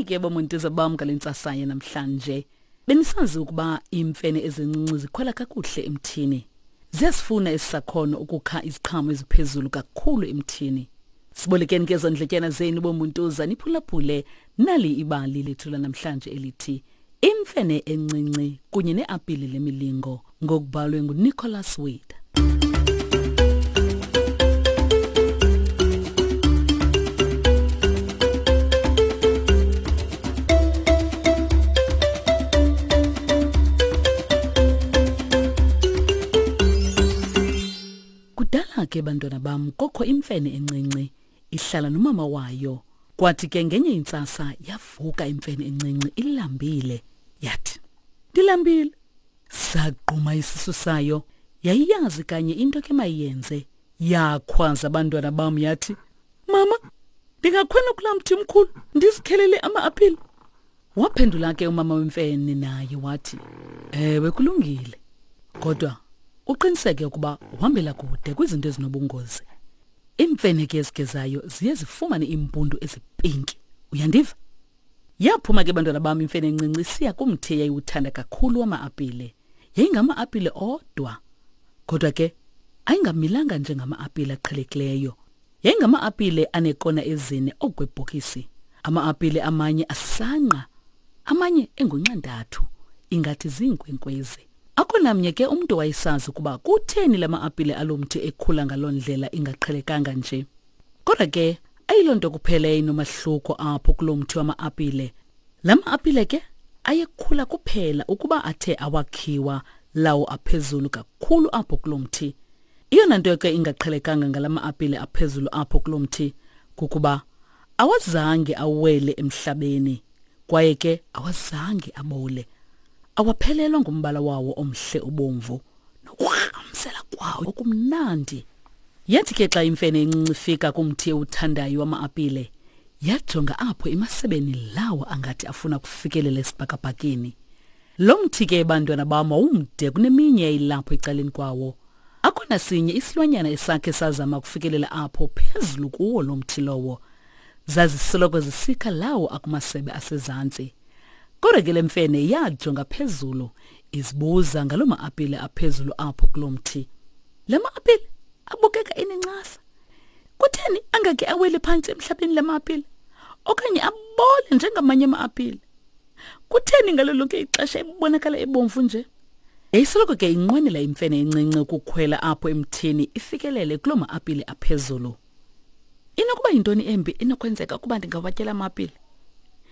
ke bomuntuza bam ngale ntsasa yanamhlanje. Benisazi ukuba iimfene ezincinci zikhwela kakuhle emthini. Ziyasifuna esi sakhono ukukha iziqhamo eziphezulu kakhulu emthini. Sibolekeni ke zondletyana zenu bomuntuza niphulaphule nali ibali lethu lanamhlanje elithi Imfene encinci kunye neapile lemilingo ngokubhalwe nguNicholas Wade. Kudala ke bantwana bam kokho imfene encinci ihlala nomama wayo. Kwathi ke ngenye intsasa yavuka imfene encinci ilambile yathi ndilambile. Sagquma isisu sayo yayiyazi kanye into ke mayenze. Yakhwaza abantwana bam yathi mama ndingakhwela kulaa mthi mkhulu ndizikhelele ama-apile. Waphendula ke umama wemfene naye wathi, Ewe kulungile. Kodwa uqiniseke ukuba uhambela kude kwizinto ezinobungozi. Iimfene ke ezigezayo ziye zifumane iimpundu ezipinki. Uyandiva? Yaphuma ke bantwana bam imfene encinci isiya kumthi eyayiwuthanda kakhulu wama-apile. Yayingama-apile odwa. Kodwa ke ayingamilanga njengama-apile aqhelekileyo. Yayingama-apile aneekona ezine okwebhokisi. Ama-apile amanye asangqa, amanye engunxantathu, ingathi ziinkwenkwezi. Akho namnye ke umntu wayesazi ukuba kutheni la ma-apile alo mthi ekhula ngaloo ndlela ingaqhelekanga nje. Kodwa ke ayiloo nto kuphela eyayinomahluko apho kuloo mthi wama-apile. La ma-apile ke ayekhula kuphela ukuba athe awakhiwa lawo aphezulu kakhulu apho kuloo mthi. Eyona nto ke ingaqhelekanga ngala ma-apile aphezulu apho kuloo mthi kukuba awazange awele emhlabeni kwaye ke awazange abole. Awaphelelwa ngumbala wawo omhle obomvu nokurhamsela kwawo okumnandi. Yathi ke xa imfene encinci ifika kumthi ewuthandayo wama-apile, yajonga apho emasebeni lawo angathi afuna kufikelela esibhakabhakeni. Lo mthi ke bantwana bam wawumde kuneminye eyayilapho ecaleni kwawo. Akho nasinye isilwanyana esakhe sazama ukufikelela apho phezulu kuwo lo mthi lowo. Zazisoloko zisikha lawo akumasebe asezantsi. Kodwa ke le mfene yajonga phezulu izibuza ngaloo ma-apile aphezulu apho kuloo mthi. La ma-apile abukeka enencasa. Kutheni angake awele phantsi emhlabeni la ma-apile okanye abole njengamanye ama-apile? Kutheni ngalo lonke ixesha ebonakala ebomvu nje? Yayisoloko ke inqwenela imfene encinci ukukhwela apho emthini ifikelele kuloo ma-apile aphezulu. Inokuba yintoni embi enokwenzeka ukuba ndingawatyela ama-apile?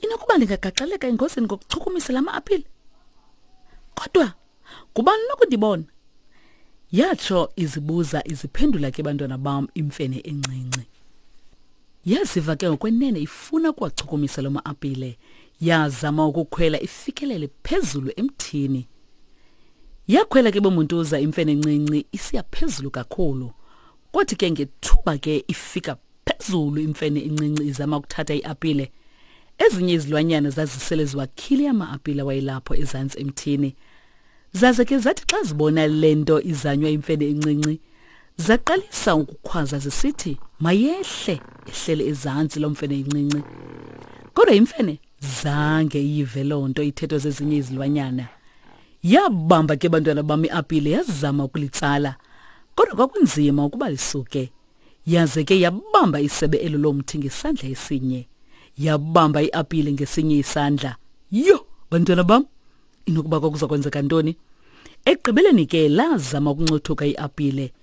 Inokuba ndingagaxeleka engozini ngokuchukumisa la ma-apile? Kodwa ngubani nokundibona? Yatsho izibuza iziphendula ke bantwana bam imfene encinci. Yaziva ke ngokwenene ifuna ukuwachukumisa loo ma-apile. Yazama ukukhwela ifikelele phezulu emthini. Yakhwela ke bomuntuza imfene encinci isiya phezulu kakhulu. Kwathi ke ngethuba ke ifika phezulu imfene encinci izama ukuthatha iapile. Ezinye izilwanyana zazisele ziwakhile ama-apile awayelapho ezantsi emthini. Zaze ke zathi xa zibona le nto izanywa imfene encinci, zaqalisa ukukhwaza zisithi mayehle ehlele ezantsi loo mfene incinci. Kodwa imfene zange iyive loo nto ithethwa zezinye izilwanyana. Yabamba ke bantwana bam iapile yazama ukulitsala, kodwa kwakunzima ukuba lisuke. Yaze ke yabamba isebe elo lomthi ngesandla esinye, yabamba iapile ngesinye isandla. Yho, bantwana bam, inokuba kwakuza kwenzeka ntoni? Ekugqibeleni ke lazama ukuncothuka iapile.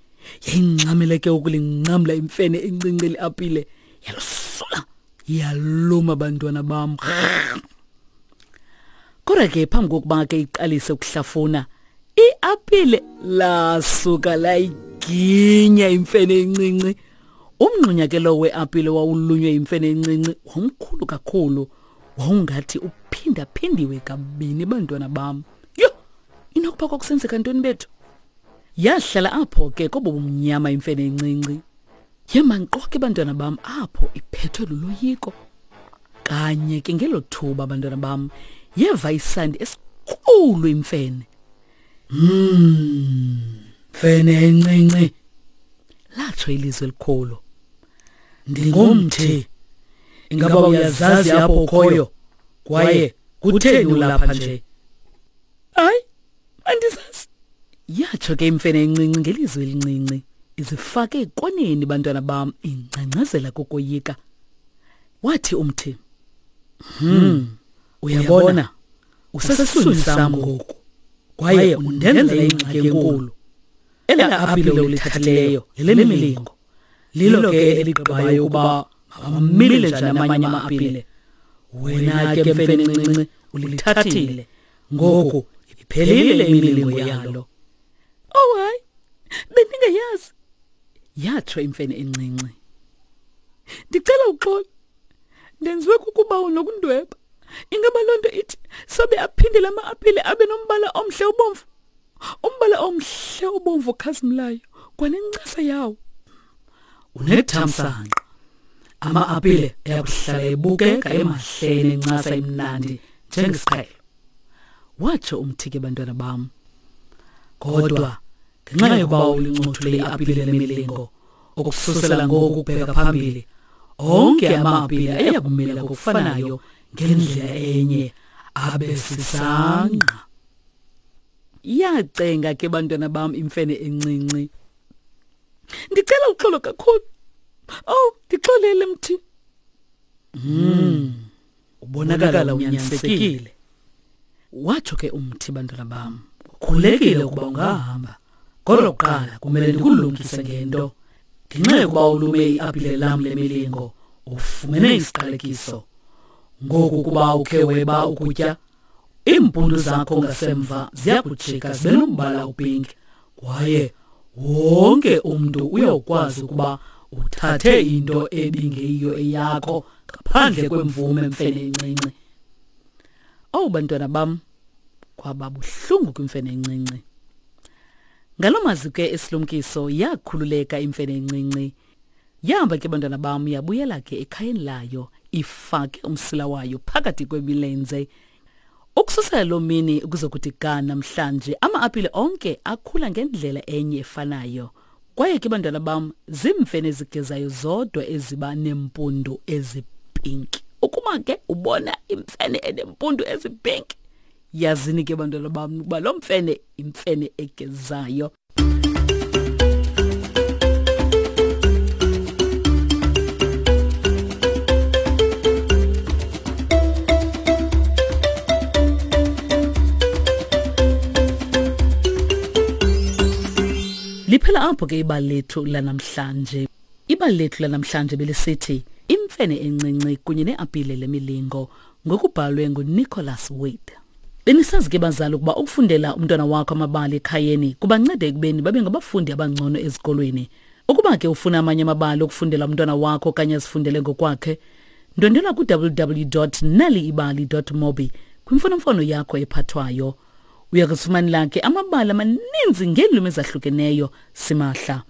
Yayingxamele ke ukulincamla imfene encinci liapile. Yalusula yaluma bantwana bam. Kodwa ke phambi kokuba ke iqalise ukuhlafuna, iapile lasuka layiginya imfene encinci. Umngxunya ke lowo weapile wawulunywe imfene encinci wawumkhulu kakhulu. Wawungathi uphindaphindiwe kabini bantwana bam. Yho, inokuba kwakusenzeka ntoni bethu? Yahlala apho ke kobo bumnyama imfene encinci. Yema nkqo ke bantwana bam apho iphethwe luloyiko. Kanye ke ngelo thuba bantwana bam yeva isandi esikhulu imfene. Mfene encinci. Latsho ilizwi elikhulu. Ndingumthi. Ingaba uyazazi apho ukhoyo? Kwaye kutheni ulapha nje? Hayi, andisazi. Yatsho ke imfene encinci ngelizwi elincinci, izifake ekoneni bantwana bam ingcangcazela kokoyika. Wathi umthi, uyabona, usesiswini sam ngoku, kwaye undenzela ingxaki enkulu. Ela apile ulithathileyo lelemilingo. Lilo ke eligqibayo ukuba mawamile njani amanye ama-apile. Wena ke mfene encinci ulithathile. Ngoku iphelile imilingo yalo. Oh hayi, bendingayazi. Yatsho imfene encinci. Ndicela uxolo. Ndenziwe kukuba unokundweba. Ingaba loo nto ithi sobe aphinde la ma-apile abe nombala omhle obomvu? Umbala omhle obomvu okhazimlayo kwanencasa yawo. Unethamsanqa. Ama-apile ayakuhlala ebukeka emahle enencasa emnandi njengesiqhelo. Watsho umthi ke bantwana bam. Kodwa ngenxa yokuba ulincothule iapile lemilingo ukususela ngoku kubheka phambili onke ama-apile ayakumila ngokufanayo ngendlela enye abe sisangqa. Yacenga ke bantwana bam imfene encinci. Ndicela uxolo kakhulu. Oh, ndixolele mthi. Ubonakala unyanisekile. Watsho ke umthi bantwana bam. Ukhulekile ukuba ungahamba. Kodwa kuqala kumele ndikulumkise ngento. Ngenxa yokuba ulume iapile lam lemilingo, ufumene isiqalekiso. Ngoku kuba ukhe weba ukutya, iimpundu zakho ngasemva ziyakujika zibe nombala opinki, kwaye wonke umntu uyawukwazi ukuba uthathe into ebingeyiyo eyakho ngaphandle kwemvume mfene encinci. Owu bantwana bam, kwaba buhlungu kwimfene encinci. Ngaloo mazwi ke esilumkiso yakhululeka imfene encinci. Yahamba ke bantwana bam yabuyela ke ekhayeni layo ifake umsila wayo phakathi kwemilenze. Ukususela loo mini ukuzokuthi ga namhlanje ama-apile onke akhula ngendlela enye efanayo. Kwaye ke bantwana bam ziimfene ezigezayo zodwa eziba neempundu ezipinki. Ukuba ke ubona imfene enempundu ezipinki, yazini ke bantwana bam ukuba loo mfene imfene egezayo. Liphela apho ke ibali lethu lanamhlanje. Ibali lethu lanamhlanje belisithi Imfene encinci kunye neapile lemilingo ngokubhalwe nguNicholas Wade. Benisazi ke bazali ukuba ukufundela umntwana wakho amabali ekhayeni kubanceda ekubeni babe ngabafundi abangcono ezikolweni. Ukuba ke ufuna amanye amabali okufundela umntwana wakho okanye azifundele ngokwakhe, ndwendwela ku-www.naliibali.mobi kwimfonomfono yakho ephathwayo. Uya kuzifumanela ke amabali amaninzi ngeelwimi ezahlukeneyo simahla.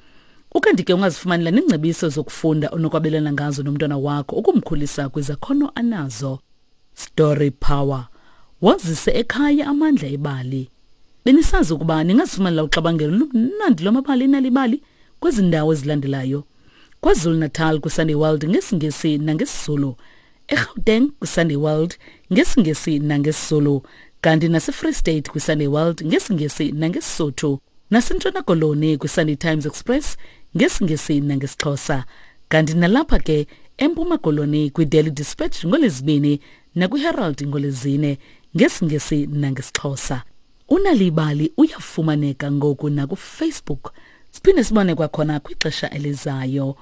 Ukanti ke ungazifumanela neengcebiso zokufunda onokwabelana ngazo nomntwana wakho ukumkhulisa kwizakhono anazo. Story Power. Wazise ekhaya amandla ebali. Benisazi ukuba ningazifumanela uxabangelo lumnandi lwamabali enalibali kwezi ndawo ezilandelayo. KwaZulu-Natal kwiSunday World ngesiNgesi nangesiZulu. eGauteng kwiSunday World ngesiNgesi nangesiZulu. Kanti naseFree State kwiSunday World ngesiNgesi nangeSisotho. NaseNtshona Koloni kwiSunday Times Express ngesiNgesi nangesiXhosa. Kanti nalapha ke eMpuma Koloni kwiDaily Dispatch ngoLwezibini nakwiHerald ngoLwezine ngesiNgesi nangesiXhosa. Unalibali uyafumaneka ngoku nakuFacebook. Siphinde sibone kwakhona kwixesha elizayo.